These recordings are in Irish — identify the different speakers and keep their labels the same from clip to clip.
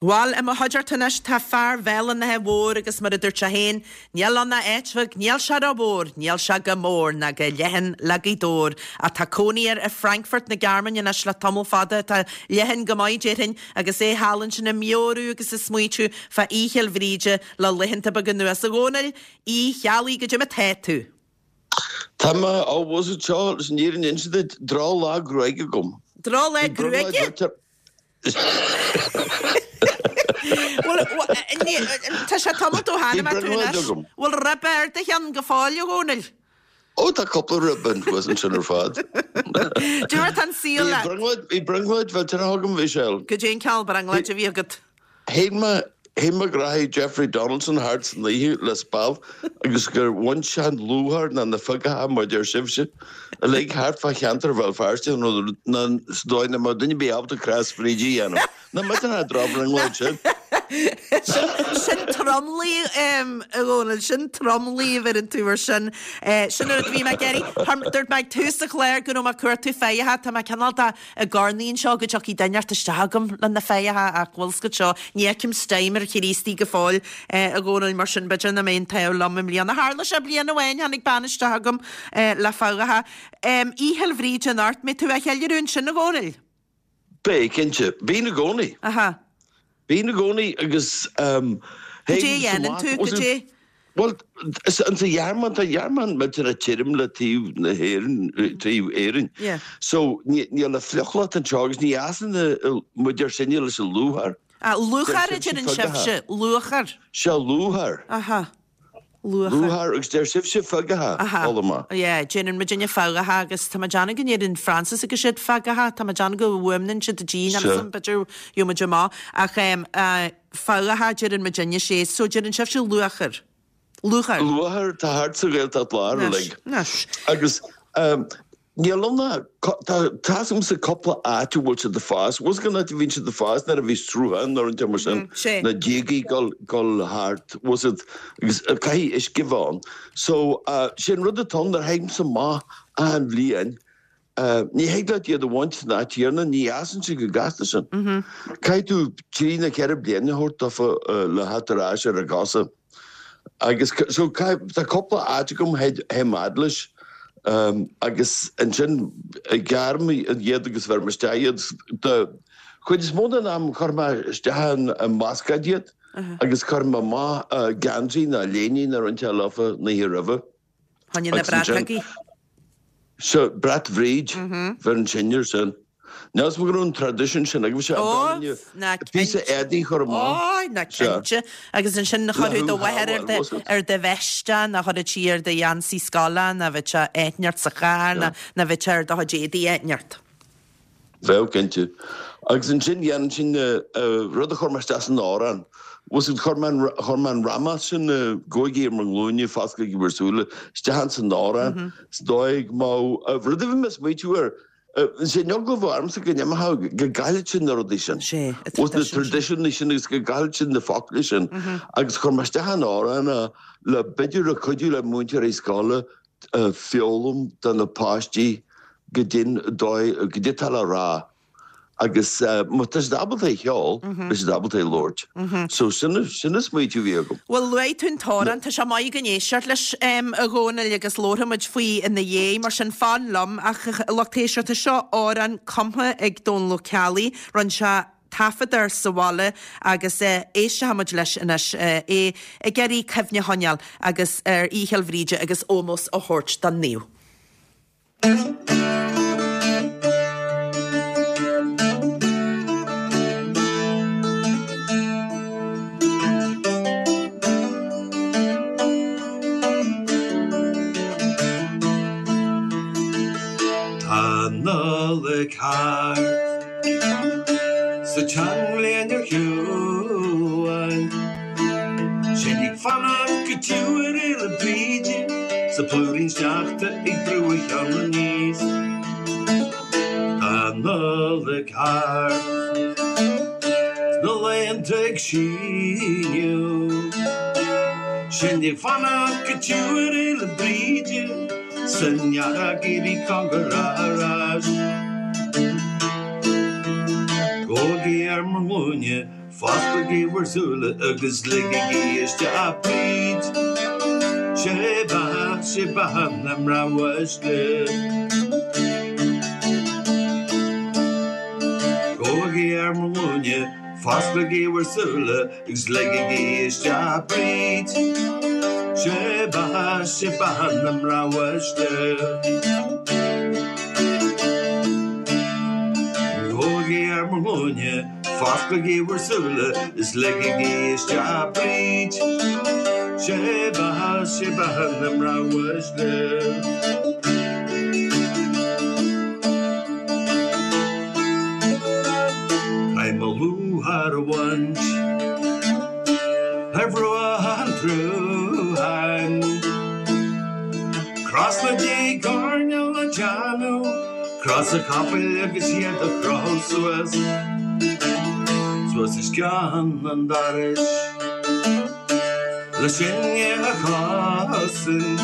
Speaker 1: Bhal, i mo chuideachta anois tá fear Bhéal an Átha Mhóir agus mar a dúirt sé féin, níl ann ach áit bheag, níl sé ró-mhór, níl sé go mór ná go leathan le Gaoth Dobhair. Ach tá cónaí air i Frankfurt na Gearmáine anois le tamall fada, atá leathan go maith déarfainn, agus é thall ansin ag meabhrú agus ag smaoitiú fá Oíche Fhéil Bhríde le laethanta beaga anuas. A Dhónaill Uí Cheallaigh, goidé mar tá tú?
Speaker 2: Tá mé, ó, bhfuil fhios agat seo, leis an fhírinne a inse duit, drochlá gruaige agam.
Speaker 1: Drochlá gruaige? Bhuel, tá sé tamall ó tháinig mé tú anois. Bhfuil ribe ar do cheann go fóill, a Dhónaill?
Speaker 2: Ó, tá cúpla ribe thuas ansin ar fad.
Speaker 1: Goidé mar tá an saol leat.
Speaker 2: Bhí brionglóid mhillteanach agam, a Mhichelle.
Speaker 1: Goidé an cineál brionglóid a bhí agat?
Speaker 2: Shíl mé, shíl mé go rachaidh Jeffrey Donaldson thart san oíche le speal agus gur bhain sé an lúcháir ná na figeacha mar deir sibhse uilig thart fá cheantar Bhéal Feirste nó ná sa dóigh nach mbeadh duine ar bith ábalta crois Bhríde a dhéanamh. Nach millteanach an drochbhrionglóid sin?
Speaker 1: Sin tromluí, a Dhónaill, sin tromluí a bheireann tú ar sin. Sin an rud a bhí mé ag iarraidh. Dúirt mé ag tús an chláir go raibh mé ag cuartú fathach. Tá mé cineál de ag urnaí anseo go dtiocfaidh duine inteacht isteach agam le na fathacha ach bhfuil 's agat seo, ní fheicim steam ar Chríostaí go fóill, a Dhónaill, mar sin b'fhéidir nach mbeidh an t-ádh liom i mbliana. Tharla sé bliain amháin, tháinig bean isteach agam le fathacha. Oíche Fhéil Bhríde anocht, mbeidh tú á cheiliúradh ansin, a Dhónaill?
Speaker 2: Beidh, cinnte. Bíonn i gcónaí.
Speaker 1: Aha.
Speaker 2: Bíonn i gcónaí agus
Speaker 1: Goidé a dhéanann tú? Goidé?
Speaker 2: Bhuel, sa Ghearmáin, tá an Ghearmáin millteanach tirim le taobh na hÉireann, taobh Éirinn.
Speaker 1: Yeah.
Speaker 2: So, níl an fliuchlocht anseo agus ní fhásann muid ar sinne leis an lúcháir.
Speaker 1: Ah, lúcháir a deireann sibhse, lúcháir.
Speaker 2: Sea, lúcháir.
Speaker 1: Aha.
Speaker 2: Lúcháir. Lúcháir agus deir sibhse figeacha,
Speaker 1: Aha.
Speaker 2: chuala mé.
Speaker 1: Yeah, déanann muidinne figeacha agus tá mé ag déanamh go ndeireann Francis agus siad figeacha, tá mé ag déanamh go bhfuaimneann siad G
Speaker 2: Sea.
Speaker 1: ansan, b'fhéidir gheobhaidh muid amach. Ach em, eh, figeacha deireann muidinne sé, so deireann sibhse lúcháir. Lúcháir.
Speaker 2: Lúcháir, tá thart sa Ghaeltacht Láir
Speaker 1: Anois,
Speaker 2: uilig.
Speaker 1: anois.
Speaker 2: Agus em, Níl ann ach, tá, tá's agamsa cúpla áit a bhfuil siad ag fás. Bhfuil 's agat cén áit a bhíonn siad ag fás nuair a bhí sruthán nó rud mar sin, na díogaí ag dul, dul thart, bhfuil 's agat, agus caithfidh uisce a bheith ann. So, sé an rud atá ann nuair a théimse amach achan bhliain, ní thig leat iad a bhaint san áit chéanna, ní fhásann siad chomh gasta sin. Caithfidh tú trí nó ceithre bliana a thabhairt dófa le theacht ar ais ar a gcosa. Agus so tá cúpla áit agam théim fhad leis agus ansin gearraim iad agus bheirim isteach iad. Den chuid is mó den am chuir mé isteach i mbascáid iad agus chuir mé amach geansaí nó léiní nó rud inteacht leofa an oíche roimhe.
Speaker 1: Choinne na bratógaí.
Speaker 2: Sea, brat Bhríd, bheireann sin air sin. Níl 'fhios a'm go raibh an traidisiún sin agaibhse,
Speaker 1: Ó,
Speaker 2: an bhfuil
Speaker 1: ná
Speaker 2: píosa
Speaker 1: cinnte.
Speaker 2: éadaí a chur amach.
Speaker 1: Ó, ná cinnte. Agus ansin chuirfeadh do mháthair ar do, ar do veist é, nó chuirfeadh sí ar do gheansaí scoile, nó bheadh sé áit inteacht sa charr, nó, nó bheadh sé ar do chuid éadaí áit inteacht.
Speaker 2: Bheadh, cinnte. Agus ansin dhéanann sin rud a chuir mé isteach san amhrán. Bhfuil 's agat, chuir mé an, chuir mé an ramás sin, gabhaigí ar bhur nglúine, fosclaigí bhur súile, isteach ins an amhrán. Is dóigh go mbeadh, rud a bhí mé ag smaoitiú air, sé an eagla a bheadh ormsa go n-imeodh, go gcaillfeadh sin na rudaí sin.
Speaker 1: Sé,
Speaker 2: na traidisiúin sin agus go gcaillfeadh sin na focla sin. Agus chuir mé isteach an amhrán é le b'fhéidir le cuidiú le múinteoirí scoile foghlaim do na páistí goidé an dóigh, goidé atá le rá agus má tá siad ábalta é a cheol, beidh siad ábalta é a labhairt. So sin, sin an smaoitiú a bhí agam.
Speaker 1: Bhuel, luaigh tú an t-amhrán, tá sé maith againn éisteacht leis, a Dhónaill, agus labharfaidh muid faoi ina dhiaidh, mar sin fan liom. Ach, a lucht éisteachta, seo amhrán cumtha ag Dónal Ó Ceallaigh, rinne sé taifead air sa bhaile agus éistfidh muid leis anois, é ag iarraidh cuimhne a choinneáil agus ar Oíche Fhéil Bhríde agus ómós a thabhairt don naomh.
Speaker 3: Tá an Nollaig thart. 'S an tseanbhliain ar shiúl. Sinn ag fanacht go tiubh ar Fhéile Bríde 's an plúirín sneachta ag brú a cheann aníos. Tá an Nollaig thart 's na laethanta ag síneadh. Sinn ag fanacht go tiubh ar Fhéile Bríde 's an earrach ag éirí cóngarach ar ais. Gabhaigí ar bhur nglúine. Fosclaigí bhur súile agus ligigí isteach Bríd. 'Sé beatha, 'sé beatha na mná uaisle. Gabhaigí ar mo ghlúine, fosclaigí bhur súile agus ligigí isteach Bríd. 'Sé beatha, 'sé beatha na mná uaisle. Gabhaigí ar mo ghlúine. Fosclaigí bhur súile is ligigí isteach Bríd. 'Sé beatha, 'sé beatha na mná uaisle. Caithfidh mo lúcháir a bhaint ar bhruach an tsrutháin. Cros na dtig coirnéal a déanamh. Cros an chapaill agus iad a chrochadh suas, suas os cionn an dorais le sinne a chosaint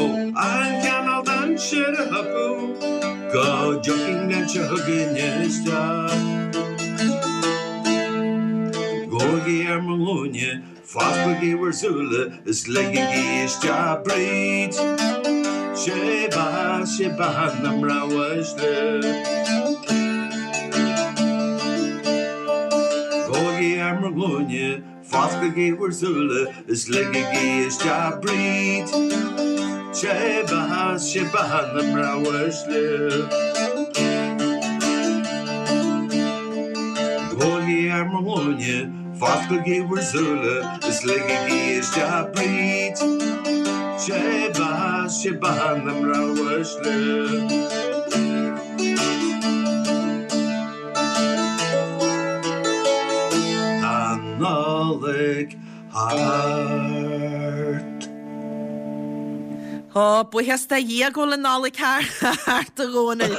Speaker 3: ó aon chineál dainséar a thiocfadh go dtiocfaidh an bhliain seo chugainn isteach. Gabhaigí ar mo ghlúine Fosclaigí bhur súile is ligigí isteach Bríd. 'Sé beatha, 'sé beatha na mná uaisle. Gabhaigí ar mo ghlúine, fosclaigí bhur súile is ligigí isteach Bríd. 'Sé beatha, 'sé beatha na mná uaisle. Gabhaigí ar mo ghlúine, Fosclaigí bhur súile is ligigí isteach Bríd. 'Sé beatha, 'sé beatha na mná uaisle. Tá an Nollaig thart.
Speaker 1: Ó, buíochas do Dhia go bhfuil an Nollaig thart, a Dhónaill.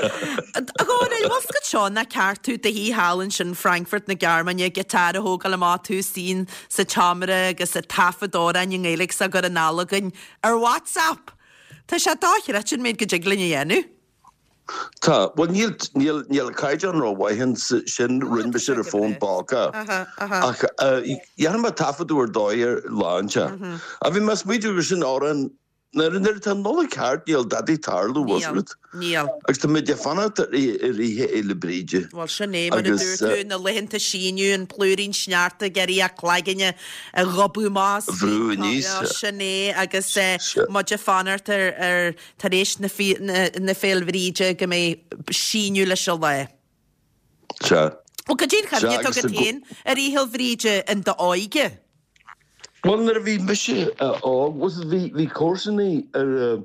Speaker 1: A Dhónaill, bhfuil 's agat seo nach ceart tú i do shuí thall ansin Frankfurt na Gearmáine, giotár a thógáil amach, tú istigh sa tseomra agus ag taifead amhráin i nGaeilge 's á gcur anall againn ar WhatsApp! Tá sé dochreidte an méid go dtig linn a dhéanamh.
Speaker 2: Tá. Bhuel, níl, níl, níl an caighdeán rómhaith ann sin, rinne mise ar an bhfón póca. Ach dhéanfaidh mé taifeadadh ar dóigh ar lá inteacht. Ach bhí mé ag smaoitiú gur sin amhrán, nuair, nuair atá an Nollaig thart níl dadaí ag tarlú, bhfuil 's
Speaker 1: Níl,
Speaker 2: agat.
Speaker 1: níl.
Speaker 2: Agus tá muid ag fanacht ar oíche Fhéile Bríde.
Speaker 1: Bhuel, sin é, mar a
Speaker 2: Agus,
Speaker 1: dúirt tú, na laethanta síneadh, an plúirín sneachta ag iarraidh a cloigne a ghobadh amach.
Speaker 2: A bhrú aníos.
Speaker 1: Sin é, agus muid ag fanacht ar, ar, Tar éis na Féil' Bhríde go mbeidh síneadh leis an lá.
Speaker 2: Sea.
Speaker 1: Bhuel, cad é an chuimhne atá agat féin ar Oíche Fhéil' Bhríde in d'óige?
Speaker 2: Bhuel, nuair a bhí mise óg, bhí, bhí comharsanaí ar,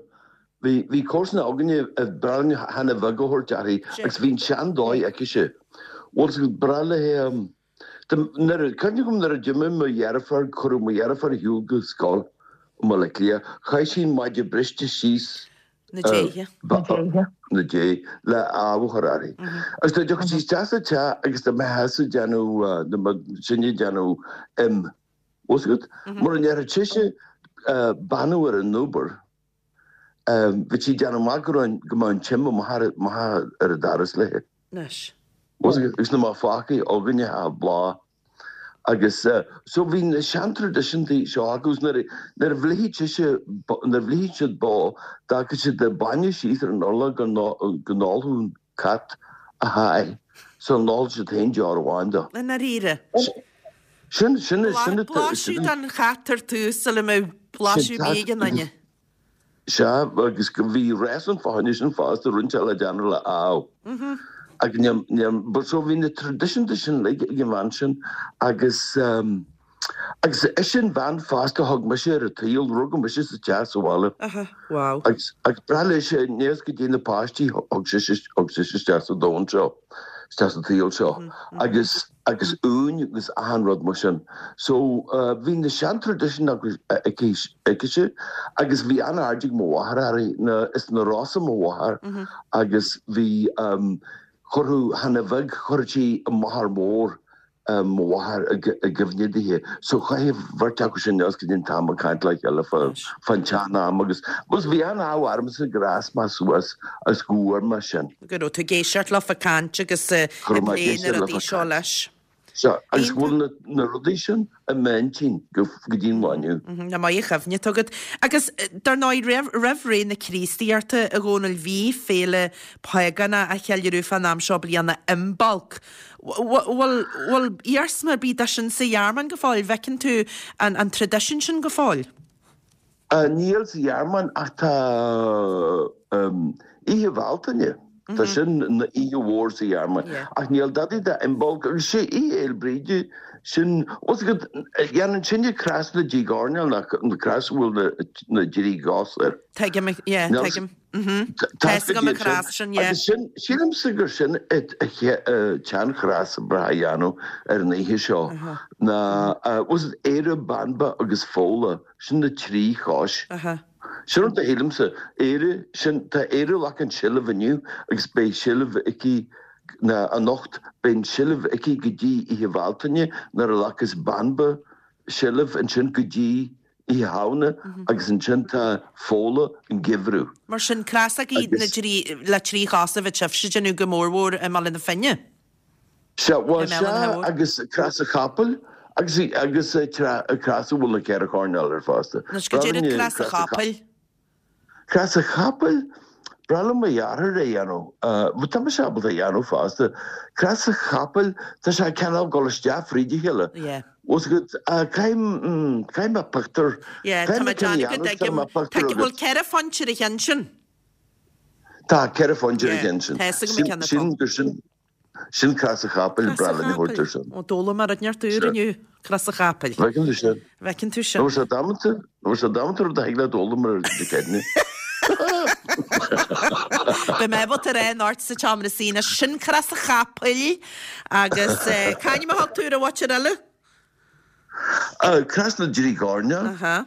Speaker 2: bhí, bhí comharsana againne a ba bhreá linn Hannah Bheag a thabhairt uirthi agus bhí an sean-dóigh aicise. Bhuel, breá léi, Nuair a, cuimhne agam nuair a d'imigh mo dheirfiúr, cuireadh mo dheirfiúr ar shiúl go scoil i mBaile Átha Cliath, chaith sí an maide briste síos
Speaker 1: Na déithe.
Speaker 2: Na déithe, le ádh a chur uirthi. Agus dá dtiocfadh sí isteach sa teach agus dá mbeifeása ag déanamh, dá mbeadh sinne ag déanamh im, bhfuil 's agat? Mura ndéarfadh sise beannú ar an obair, Bhí sí ag déanamh amach go raibh, go mbeadh an t-im amach ar an doras léi.
Speaker 1: Anois.
Speaker 2: Agus na mbeadh fágtha againne ach bláth. Agus so bhí na seantraidisiúntaí seo acu agus nuair a, nuair a bhlitheadh sise, nuair a bhlitheadh siad bó, d'fhágfadh siad an bainne síos ar an urlár go go n-ólfadh an cat a sháith sula n-ólfadh siad féin deoir amháin
Speaker 1: de. I ndáiríre.
Speaker 2: Sin, sin, sin,
Speaker 1: Blaiseadh don chat ar tús sula mbeadh blaiseadh ar bith ag aon duine.
Speaker 2: Sea, agus bhí réasún fá choinne sin fosta, roinnt eile déanamh le ádh. Ach níl, níl, but so bhí na traidisiúnta sin uilig ag an bhean sin agus, agus ise an bhean fosta a thug mise ar an tsaol, rugadh mise sa teach sa bhaile.
Speaker 1: Aha, wow.
Speaker 2: Agus, agus breá léise, aníos go dtí na páistí, thug sise, thug sise isteach sa domhan seo, isteach sa tsaol seo. Agus. agus uain agus achan rud mar sin. So bhí na seantraidisiúin aicise agus bhí an-aird ag mo mháthair uirthi, na, is as na Rosa mo mháthair agus bhí, chuirfeadh Hannah Bheag, chuirfeadh sí a máthair mhór, mo mháthair i gcuimhne dithe. So chaith an bheirt acu sin anuas go dtí an t-am ag caint le chéile fán tsean-am agus, agus bhí an-ádh ormsa gur fhás mé suas agus go bhfuair mé sin.
Speaker 1: Go raibh tú ag éisteacht leofa ag caint agus ag plé na rudaí seo leis.
Speaker 2: Sea, agus go bhfuil na rudaí sin i m'intinn go dtí an lá inniu.
Speaker 1: Nach maith an chuimhne atá agat. Agus dar ndóigh, roimh ré na Críostaíochta, a Dhónaill, bhí féile págánach á cheiliúradh fán am seo bliana, Imbolc. Bhfuil iarsma ar bith de sin sa Ghearmáin go fóill? Bhfeiceann tú an traidisiún sin go fóill?
Speaker 2: Níl sa Ghearmáin ach tá Oíche Bhealtaine, tá sin ina oíche mhór sa Ghearmáin. Ach níl dadaí de Imbolc agus sé Oíche Fhéil Bríde, sin, bhfuil 's agat, dhéanann sinne cros na dtrí gcoirnéal, na cros a bhfuil na dtrí gcos air.
Speaker 1: Tuigim, yeah, tuigim. Tá 'fhios agam an chros sin, yeah.
Speaker 2: Agus sin, sílimse gur sin an tseanchros ba bhreá a dhéanamh ar an oíche seo ná, bhfuil 's agat, Éire, Banba agus Fódhla. Sin na trí chois. Sin rud a shílimse. Éire, sin, tá Éire ag glacadh an seilbh inniu agus beidh seilbh aici, ná anocht, beidh an seilbh aici go dtí Oíche Bhealtaine nuair a ghlacas Banba seilbh ansin go dtí Oíche Shamhna agus ansin tá Fódhla an geimhreadh.
Speaker 1: Mar sin, crosógaí na dtrí, le trí chos a bheadh sibhse ag déanamh go mórmhór i mBaile na Finne.
Speaker 2: Sea, bhuel, sea, agus Crois an Chapaill, agus, agus crois a bhfuil na ceithre choirnéal air fosta.
Speaker 1: Anois, goidé rud Crois an Chapaill?
Speaker 2: Crois an Chapaill, b'bhreá le mo dheartháir é a dhéanamh, bhuel, tá mise ábalta é a dhéanamh fosta. Crois an Chapaill, tá sé cineál ag dul isteach fríd a chéile.
Speaker 1: Yeah.
Speaker 2: Bhfuil 's agat, caithfidh, caithfidh mé pictiúr,
Speaker 1: Yeah, tá
Speaker 2: caithfidh
Speaker 1: mé
Speaker 2: mé ceann a
Speaker 1: déanamh go
Speaker 2: dhéanamh,
Speaker 1: dtuigim.
Speaker 2: caithfidh mé pictiúr
Speaker 1: Tá, bhfuil
Speaker 2: agat.
Speaker 1: ceithre phointe ar a cheann sin?
Speaker 2: Tá ceithre phointe ar a
Speaker 1: Yeah,
Speaker 2: cheann sin.
Speaker 1: tá 'fhios agam an ceann atá.
Speaker 2: Sin, gur sin, Sin Crois an Chapaill,
Speaker 1: Crois
Speaker 2: breá
Speaker 1: an
Speaker 2: linn a thabhairt
Speaker 1: Chapaill.
Speaker 2: air sin.
Speaker 1: Ó, d'fhoghlaim mé rud inteacht úr
Speaker 2: Sea.
Speaker 1: inniu, Crois an Chapaill.
Speaker 2: Bhfeiceann tú sin.
Speaker 1: Bhfeiceann tú sin.
Speaker 2: Nó sé damanta, nó sé damanta rud a thig leat a fhoghlaim ar Dé Céadaoine.
Speaker 1: Beidh mé ábalta a rá anocht sa tseomra suí anois, sin Crois an Chapaill agus c'ainm a thug tú ar an mhaotir eile?
Speaker 2: Crois na dTrí gCoirnéal.
Speaker 1: Aha.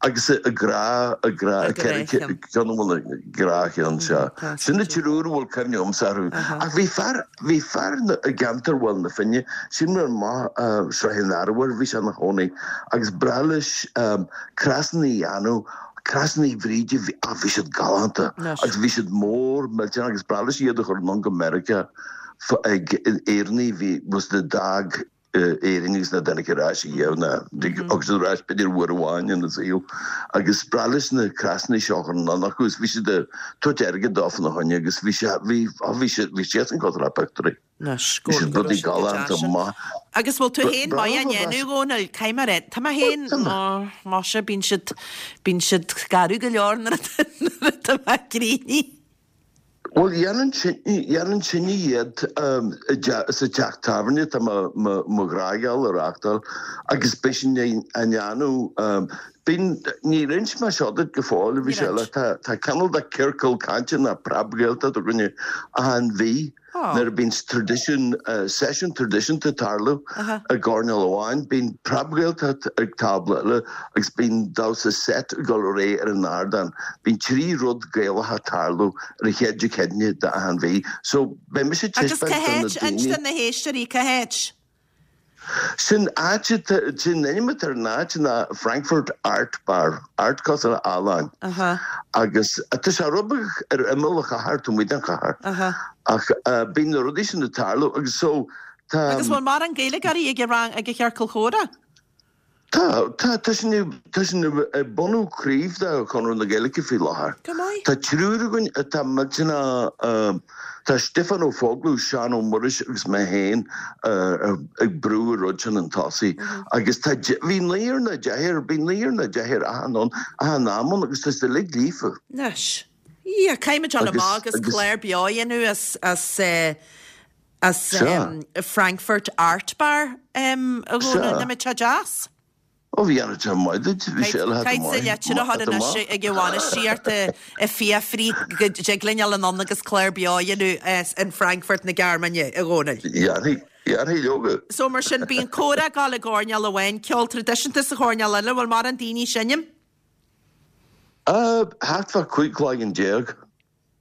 Speaker 2: Agus a grá, a grá, a ceithre ceann a bhfuil a grá cheann seo. Sin na triúr a bhfuil cuimhne agamsa orthu. Ach bhí fear, bhí fear i gceantar Bhaile na Finne, sin mar maith Sraith an Arbhair, bhí sé ina chónaí, agus b'bhreá leis crosanna a dhéanamh, crosanna Bhríde, bhí, ah bhí siad galánta agus bhí siad mór millteanach agus b'bhreá leis iad a chur anonn go Meiriceá ag Éireannaigh a bhí, was the dog. Éirinn agus nach dtáinig ar ais ariamh ná thug siad ar ais b'fhéidir uair amháin ina saol agus b'bhreá leis na crosanna seo a chur anonn acu agus bhí siad ag tabhairt airgead dó fána choinne agus bhí sé bhí á bhí sé bhí siadsan cosúil le pictiúirí.
Speaker 1: Anois,
Speaker 2: Bhí
Speaker 1: go
Speaker 2: siad
Speaker 1: go raibh
Speaker 2: rudaí
Speaker 1: siad go
Speaker 2: galánta
Speaker 1: deas sin.
Speaker 2: maith.
Speaker 1: Agus bhfuil tú féin
Speaker 2: Breá
Speaker 1: maith á
Speaker 2: liom a
Speaker 1: ndéanamh,
Speaker 2: bheas.
Speaker 1: a Dhónaill? Caithfidh mé a rá, tá mé féin,
Speaker 2: Tá mé.
Speaker 1: ó, maise, bíonn siad, bíonn siad garbh go leor nuair atá nuair atá mé críochnaithe.
Speaker 2: Bhuel, dhéanann dhéanann sinne iad sa teach tábhairne atá mo ghnáthgheall a reáchtáil agus beidh sin á ndéanamh. Bíonn, níor inis mé seo duit go fóill, bhí sé le, tá cineál de ciorcal cainte nó preab-Ghaeltacht againne achan mhí. Nuair a bíonn traidisiún, seisiún traidisiúnta ag tarlú i gcoirnéal amháin, bíonn preab-Ghaeltacht ag tábla eile agus bíonn damhsa seit ag dul ar aghaidh ar an ardán. Bíonn trí rud Gaelacha ag tarlú ar an chéad Dé Céadaoine d'achan mhí. So, beidh mise ag
Speaker 1: Agus
Speaker 2: taispeáint
Speaker 1: cá
Speaker 2: do na
Speaker 1: háit? Inis
Speaker 2: daoine.
Speaker 1: do na héisteoirí, cá háit?
Speaker 2: Sin áit atá, sin ainm atá ar an áit ná Frankfurt Art Bar, Art cosúil le ealaín. Agus tá sé rud beag ar imeall an chathair, taobh amuigh den chathair. Ach bíonn na rudaí sin ag tarlú agus so tá.
Speaker 1: Agus bhfuil mórán Gaeilgeoirí ag an rang, ag an chiorcal chomhrá?
Speaker 2: Tá, tá, tá sinn ag, tá sinn ag bunú craobh de Chonradh na Gaeilge faoi láthair.
Speaker 1: Go maith.
Speaker 2: Tá triúr againn atá millteanach, tá Stiofán Ó Foghlú, Seán Ó Muiris agus mé féin ag brú an rud sin chun tosaigh. Agus tá, bhí naonúr nó deichniúr, bhí naonúr nó deichniúr achan ann, achan am ann agus tá siad uilig líofa.
Speaker 1: Anois, yeah, caithfimid dul amach agus clár beo a dhéanamh as, as eh, As Frankfurt Art Bar a Dhónaill, nach mbeadh sé deas?
Speaker 2: Ó bhí an sé maith duit, bhí sé eile
Speaker 1: Caithfidh sa litir a chur anois ag an bhainistíocht ag fiafraí go dtig linn dul anonn agus clár beo a dhéanamh as in Frankfurt na Gearmáine, a Dhónaill.
Speaker 2: Dhéanfaidh, dhéanfaidh leoga.
Speaker 1: So mar sin, bíonn comhrá ag dul i gcoirnéal amháin, ceol traidisiúnta sa choirnéal eile, bhfuil mórán daoine ag seinm?
Speaker 2: Thart fá 15 cloigeann.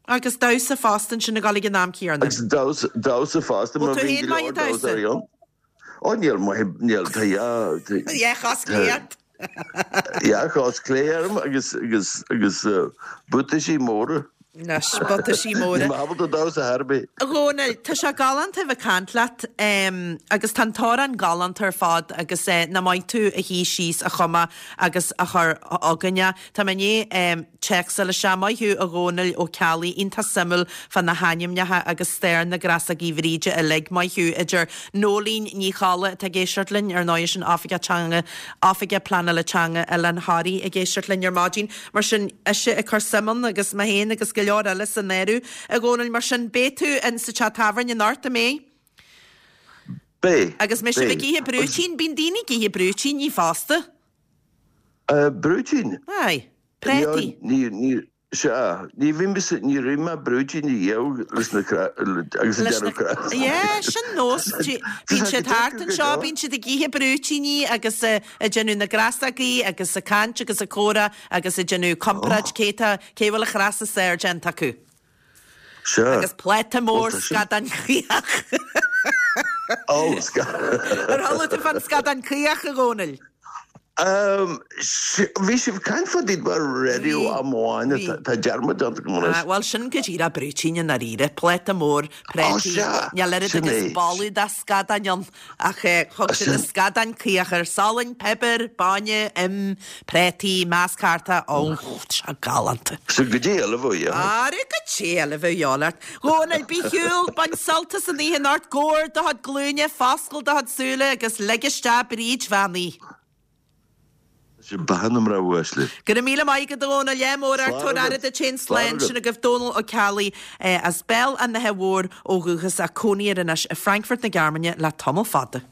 Speaker 1: Agus damhsa fosta ansin ag dul ag an am céanna.
Speaker 2: Agus damhsa, damhsa fosta
Speaker 1: Bhfuil
Speaker 2: mar
Speaker 1: tú
Speaker 2: bhíonn
Speaker 1: féin
Speaker 2: go
Speaker 1: maith
Speaker 2: leor
Speaker 1: ag damhsa?
Speaker 2: damhsóirí ann. Ó níl maith, níl, tá dhá, tá,
Speaker 1: Dhá chos chlé ort.
Speaker 2: dhá chos chlé orm agus, agus, agus buataisí móra.
Speaker 1: Anois, butaisí móra.
Speaker 2: Níl mé ábalta damhsa ar bith.
Speaker 1: A Dhónaill, tá sé galánta a bheith ag caint leat agus tá an t-amhrán galánta ar fad agus nach maith tú a shuí síos a chumadh agus a chur chugainne. Tá mé i ndiaidh téacs a fháil isteach. Maith thú a Dhónaill Ó Ceallaigh, iontach suimiúil fá na hainmneacha agus stair na gcrasógaí Bhríde uilig. Maith thú. Idir Nóilín Ní Cholla atá ag éisteacht linn, ar ndóigh sin Oifigeach Teanga, Oifigeach Pleanála Teanga Oileán Thoraí ag éisteacht linn ar maidin. Mar sin, ise ag cur suim ann agus mé féin agus go leor eile san áireamh, a Dhónaill. Mar sin, beidh tú in sa teach tábhairne anocht, an mbeidh?
Speaker 2: Beidh.
Speaker 1: Agus mbeidh sibh ag ithe brúitín? Bíonn daoine ag ithe brúitíní fosta.
Speaker 2: Brúitín?
Speaker 1: Aye. Préataí.
Speaker 2: Ní, ní, sea, ní bhí mise, ní raibh mé brúitín a dhíol leis na cra, agus ag déanamh cra.
Speaker 1: Yeah, sin nós. Bíonn siad thart anseo, bíonn siad ag ithe brúitíní agus ag déanamh na gcrasógaí agus ag caint agus ag comhrá agus ag déanamh comparáid cé tá, cé bhfuil an chras is fearr déanta acu.
Speaker 2: Sea.
Speaker 1: Agus pláta mór scadán caoch.
Speaker 2: Ó, scadán.
Speaker 1: Ar chuala tú fán scadán caoch, a Dhónaill?
Speaker 2: Bhí sibh ag caint fá dtaobh ar raidió am amháin, tá dearmad déanta agam
Speaker 1: anois. Bhuel, sin go díreach brúitín i ndáiríre, pláta mór préataí, níl oiread agus boladh de scadáin ann, ach thug siad an scadán caoch air, salann, piobar, bainne, im, préataí, measctha, ó, tá sé galánta.
Speaker 2: Sin goidé eile a bheadh
Speaker 1: leat. Ara, goidé eile a bheadh leat. Dhónaill, bí ar shiúl, bain sult as an oíche anocht, gabh ar do chuid glúine, foscail do chuid súile agus lig isteach Bríd Bhean Uí.
Speaker 2: Sin beatha na mná uaisle.
Speaker 1: Go raibh míle maith agat a Dhónaill, ádh mór ort, tabhair aire duit féin, slán, sin agaibh Dónal Ó Ceallaigh as Béal an Átha Mhóir ó dhúchas ach cónaí air anois i Frankfurt na Gearmáine le tamall fada.